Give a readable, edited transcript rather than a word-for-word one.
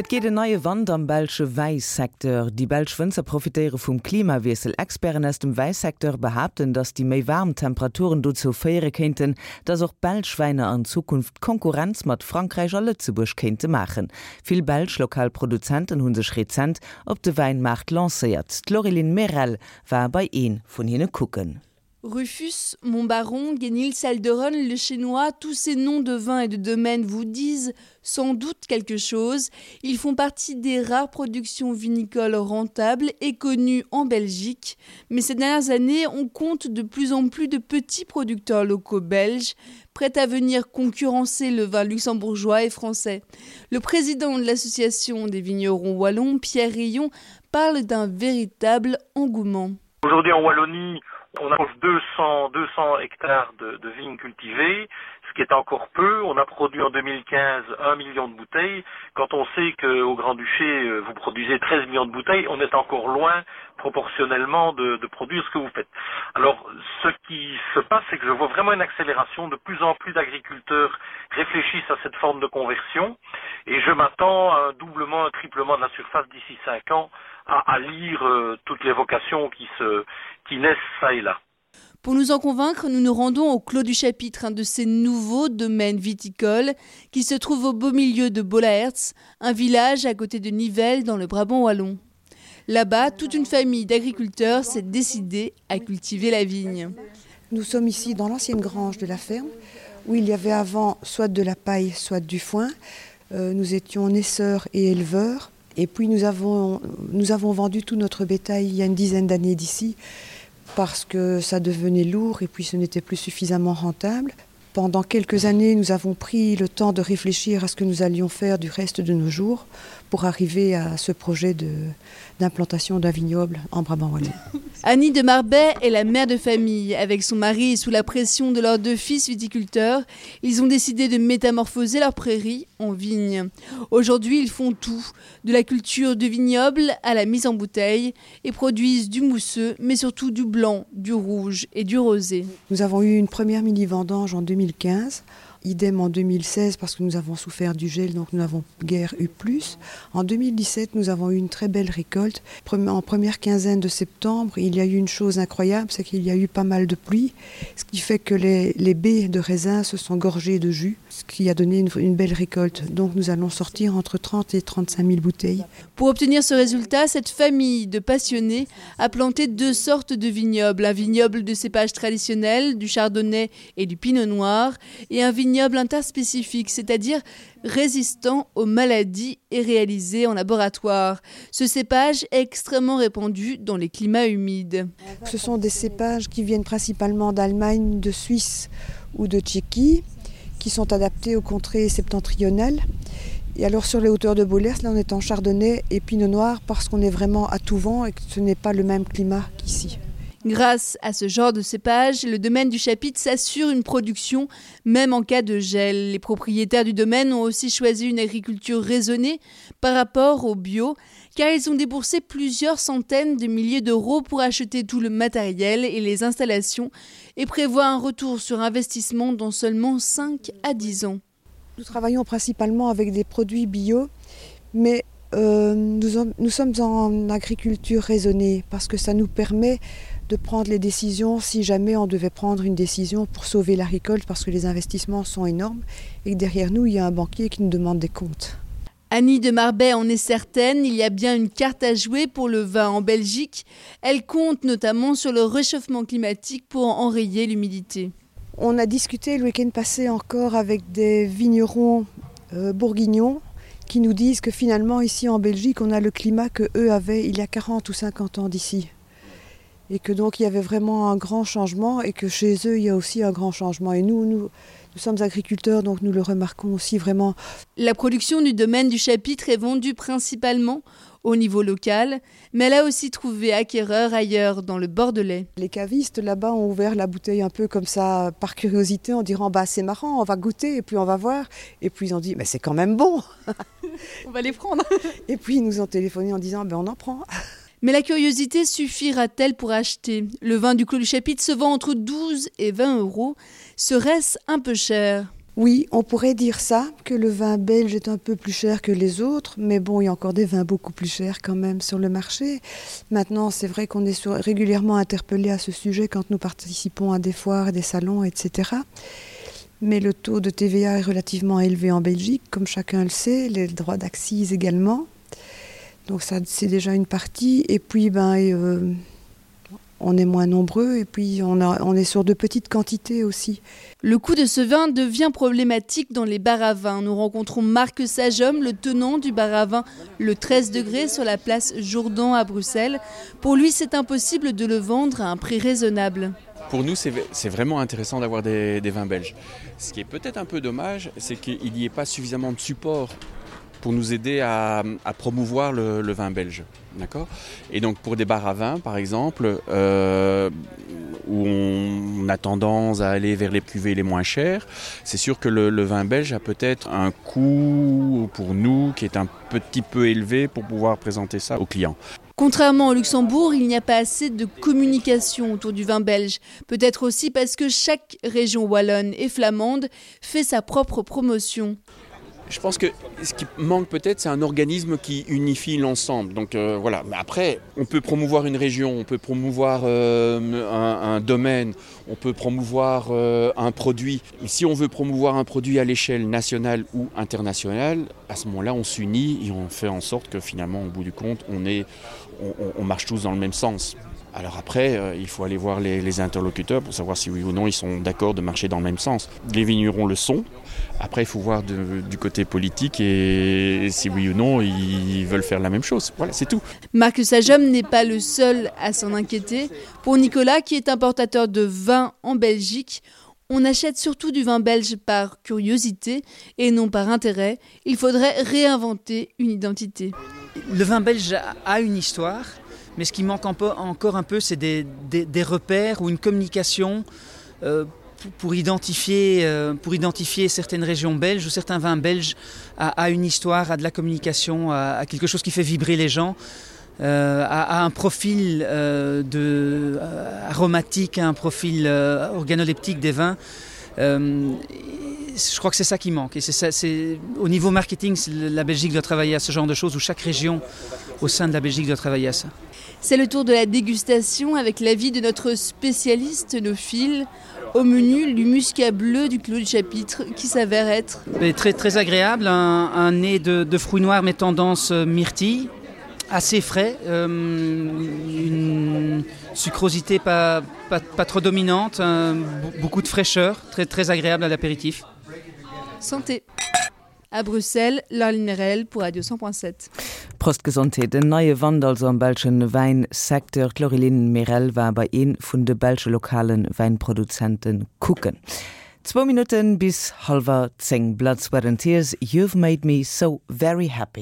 Et geet en neie Wand am belsche Wäisecteur. Déi belsch Wënzer profitéiere vum Klimawiessel. Experten aus dem Wäisecteur behaapten, datt déi méi waarm Temperaturen dozou féiere kéinten, datt och belsch Wäiner an Zukunft Konkurrenz mat Frankräich a Lëtzebuerg kéinte maachen. Vill belsch lokal Produzenten hu sech rezent op de Wäinmaart lancéiert. D'Laureline Merel war bei ee vun hinne kucken. Rufus, Montbaron, Guénil, Salderon, le Chénois, tous ces noms de vins et de domaines vous disent sans doute quelque chose. Ils font partie des rares productions vinicoles rentables et connues en Belgique. Mais ces dernières années, on compte de plus en plus de petits producteurs locaux belges prêts à venir concurrencer le vin luxembourgeois et français. Le président de l'association des vignerons wallons, Pierre Rion, parle d'un véritable engouement. Aujourd'hui en Wallonie, on a 200, 200 hectares de, de vignes cultivées, ce qui est encore peu. On a produit en 2015 1 million de bouteilles. Quand on sait qu'au Grand-Duché, euh, vous produisez 13 millions de bouteilles, on est encore loin proportionnellement de, de produire ce que vous faites. Alors ce qui se passe, c'est que je vois vraiment une accélération. De plus en plus d'agriculteurs réfléchissent à cette forme de conversion et je m'attends à un doublement, un triplement de la surface d'ici 5 ans à, à lire euh, toutes les vocations qui, se, qui naissent ça et là. Pour nous en convaincre, nous nous rendons au Clos du Chapitre, un de ces nouveaux domaines viticoles qui se trouve au beau milieu de Bolaertz, un village à côté de Nivelles dans le Brabant wallon. Là-bas, toute une famille d'agriculteurs s'est décidée à cultiver la vigne. Nous sommes ici dans l'ancienne grange de la ferme où il y avait avant soit de la paille, soit du foin. Euh, nous étions naisseurs et éleveurs. Et puis nous avons, nous avons vendu tout notre bétail il y a une dizaine d'années d'ici parce que ça devenait lourd et puis ce n'était plus suffisamment rentable. Pendant quelques années, nous avons pris le temps de réfléchir à ce que nous allions faire du reste de nos jours pour arriver à ce projet d'implantation d'un vignoble en Brabant wallon. Annie de Marbet est la mère de famille. Avec son mari et sous la pression de leurs deux fils viticulteurs, ils ont décidé de métamorphoser leur prairie en vigne. Aujourd'hui, ils font tout, de la culture du vignoble à la mise en bouteille et produisent du mousseux, mais surtout du blanc, du rouge et du rosé. Nous avons eu une première mini-vendange en 2015 idem en 2016 parce que nous avons souffert du gel donc nous n'avons guère eu plus. En 2017 nous avons eu une très belle récolte. En première quinzaine de septembre, il y a eu une chose incroyable, c'est qu'il y a eu pas mal de pluie, ce qui fait que les, les baies de raisin se sont gorgées de jus, ce qui a donné une, une belle récolte. Donc nous allons sortir entre 30 et 35 000 bouteilles. Pour obtenir ce résultat, cette famille de passionnés a planté deux sortes de vignobles, un vignoble de cépage traditionnel, du chardonnay et du pinot noir et un vignoble interspécifique, c'est-à-dire résistant aux maladies et réalisé en laboratoire. Ce cépage est extrêmement répandu dans les climats humides. Ce sont des cépages qui viennent principalement d'Allemagne, de Suisse ou de Tchéquie, qui sont adaptés aux contrées septentrionales. Et alors sur les hauteurs de Bolers, là on est en chardonnay et pinot noir parce qu'on est vraiment à tout vent et que ce n'est pas le même climat qu'ici. Grâce à ce genre de cépage, le domaine du chapitre s'assure une production même en cas de gel. Les propriétaires du domaine ont aussi choisi une agriculture raisonnée par rapport au bio, car ils ont déboursé plusieurs centaines de milliers d'euros pour acheter tout le matériel et les installations et prévoient un retour sur investissement dans seulement 5 à 10 ans. Nous travaillons principalement avec des produits bio, mais euh, nous, en, nous sommes en agriculture raisonnée parce que ça nous permet de prendre les décisions si jamais on devait prendre une décision pour sauver la récolte parce que les investissements sont énormes et que derrière nous il y a un banquier qui nous demande des comptes. Annie de Marbet en est certaine, il y a bien une carte à jouer pour le vin en Belgique. Elle compte notamment sur le réchauffement climatique pour enrayer l'humidité. On a discuté le week-end passé encore avec des vignerons euh, bourguignons qui nous disent que finalement ici en Belgique on a le climat que eux avaient il y a 40 ou 50 ans d'ici et que donc il y avait vraiment un grand changement et que chez eux il y a aussi un grand changement et nous nous, nous sommes agriculteurs donc nous le remarquons aussi vraiment. La production du domaine du chapitre est vendue principalement au niveau local, mais elle a aussi trouvé acquéreur ailleurs dans le Bordelais. Les cavistes là-bas ont ouvert la bouteille un peu comme ça par curiosité en disant bah c'est marrant, on va goûter et puis on va voir et puis ils ont dit mais c'est quand même bon. on va les prendre. et puis ils nous ont téléphoné en disant ben on en prend. Mais la curiosité suffira-t-elle pour acheter Le vin du Clos du Chapitre se vend entre 12 et 20 euros. Serait-ce un peu cher? Oui, on pourrait dire ça, que le vin belge est un peu plus cher que les autres, mais bon, il y a encore des vins beaucoup plus chers quand même sur le marché. Maintenant, c'est vrai qu'on est sur, régulièrement interpellé à ce sujet quand nous participons à des foires, des salons, etc. Mais le taux de TVA est relativement élevé en Belgique, comme chacun le sait, les droits d'accise également. Donc ça c'est déjà une partie et puis ben et, euh, on est moins nombreux et puis on, a, on est sur de petites quantités aussi. Le coût de ce vin devient problématique dans les bars à vin. Nous rencontrons Marc Sagehomme, le tenant du bar à vin le 13 degrés sur la place Jourdan à Bruxelles. Pour lui, c'est impossible de le vendre à un prix raisonnable. Pour nous, c'est vraiment intéressant d'avoir des, des vins belges. Ce qui est peut-être un peu dommage, c'est qu'il n'y ait pas suffisamment de support pour nous aider à, à promouvoir le, le vin belge. D'accord Et donc pour des bars à vin, par exemple, euh, où on a tendance à aller vers les cuvées les moins chères, c'est sûr que le, le vin belge a peut-être un coût pour nous qui est un petit peu élevé pour pouvoir présenter ça aux clients. Contrairement au Luxembourg, il n'y a pas assez de communication autour du vin belge. Peut-être aussi parce que chaque région wallonne et flamande fait sa propre promotion. Je pense que ce qui manque peut-être, c'est un organisme qui unifie l'ensemble. Donc euh, voilà. Mais après, on peut promouvoir une région, on peut promouvoir euh, un, un domaine, on peut promouvoir euh, un produit. Mais si on veut promouvoir un produit à l'échelle nationale ou internationale, à ce moment-là, on s'unit et on fait en sorte que finalement, au bout du compte, on, est, on, on, on marche tous dans le même sens. Alors après, euh, il faut aller voir les, les interlocuteurs pour savoir si oui ou non ils sont d'accord de marcher dans le même sens. Les vignerons le sont. Après, il faut voir de, du côté politique et si oui ou non ils veulent faire la même chose. Voilà, c'est tout. Marc Sajom n'est pas le seul à s'en inquiéter. Pour Nicolas, qui est importateur de vin en Belgique, on achète surtout du vin belge par curiosité et non par intérêt. Il faudrait réinventer une identité. Le vin belge a une histoire mais ce qui manque un peu, encore un peu, c'est des, des, des repères ou une communication euh, pour identifier, euh, pour identifier certaines régions belges ou certains vins belges à, à une histoire, à de la communication, à, à quelque chose qui fait vibrer les gens. Euh, à, à un profil euh, de, euh, aromatique, à un profil euh, organoleptique des vins. Euh, je crois que c'est ça qui manque et c'est ça c'est au niveau marketing la Belgique doit travailler à ce genre de choses où chaque région au sein de la Belgique doit travailler à ça. C'est le tour de la dégustation avec l'avis de notre spécialiste nos fils au menu du muscat bleu du clos du chapitre qui s'avère être mais très très agréable un, un nez de, de fruits noirs mais tendance euh, myrtille assez frais euh, une sucrosité pas, pas, pas trop dominante un, beaucoup de fraîcheur très très agréable à l'apéritif santé à Bruxelles l'Almerel pour Radio 100.7. Prost Gesondheet. En neie Wand also am belsche Wäinsecteur. D'Laureline Merel war bei ee vun de belsche lokale Wäinproduzente kucken. Zwou Minutten bis hallwer 10. Blood, Sweat and Tears, You've Made Me So Very Happy.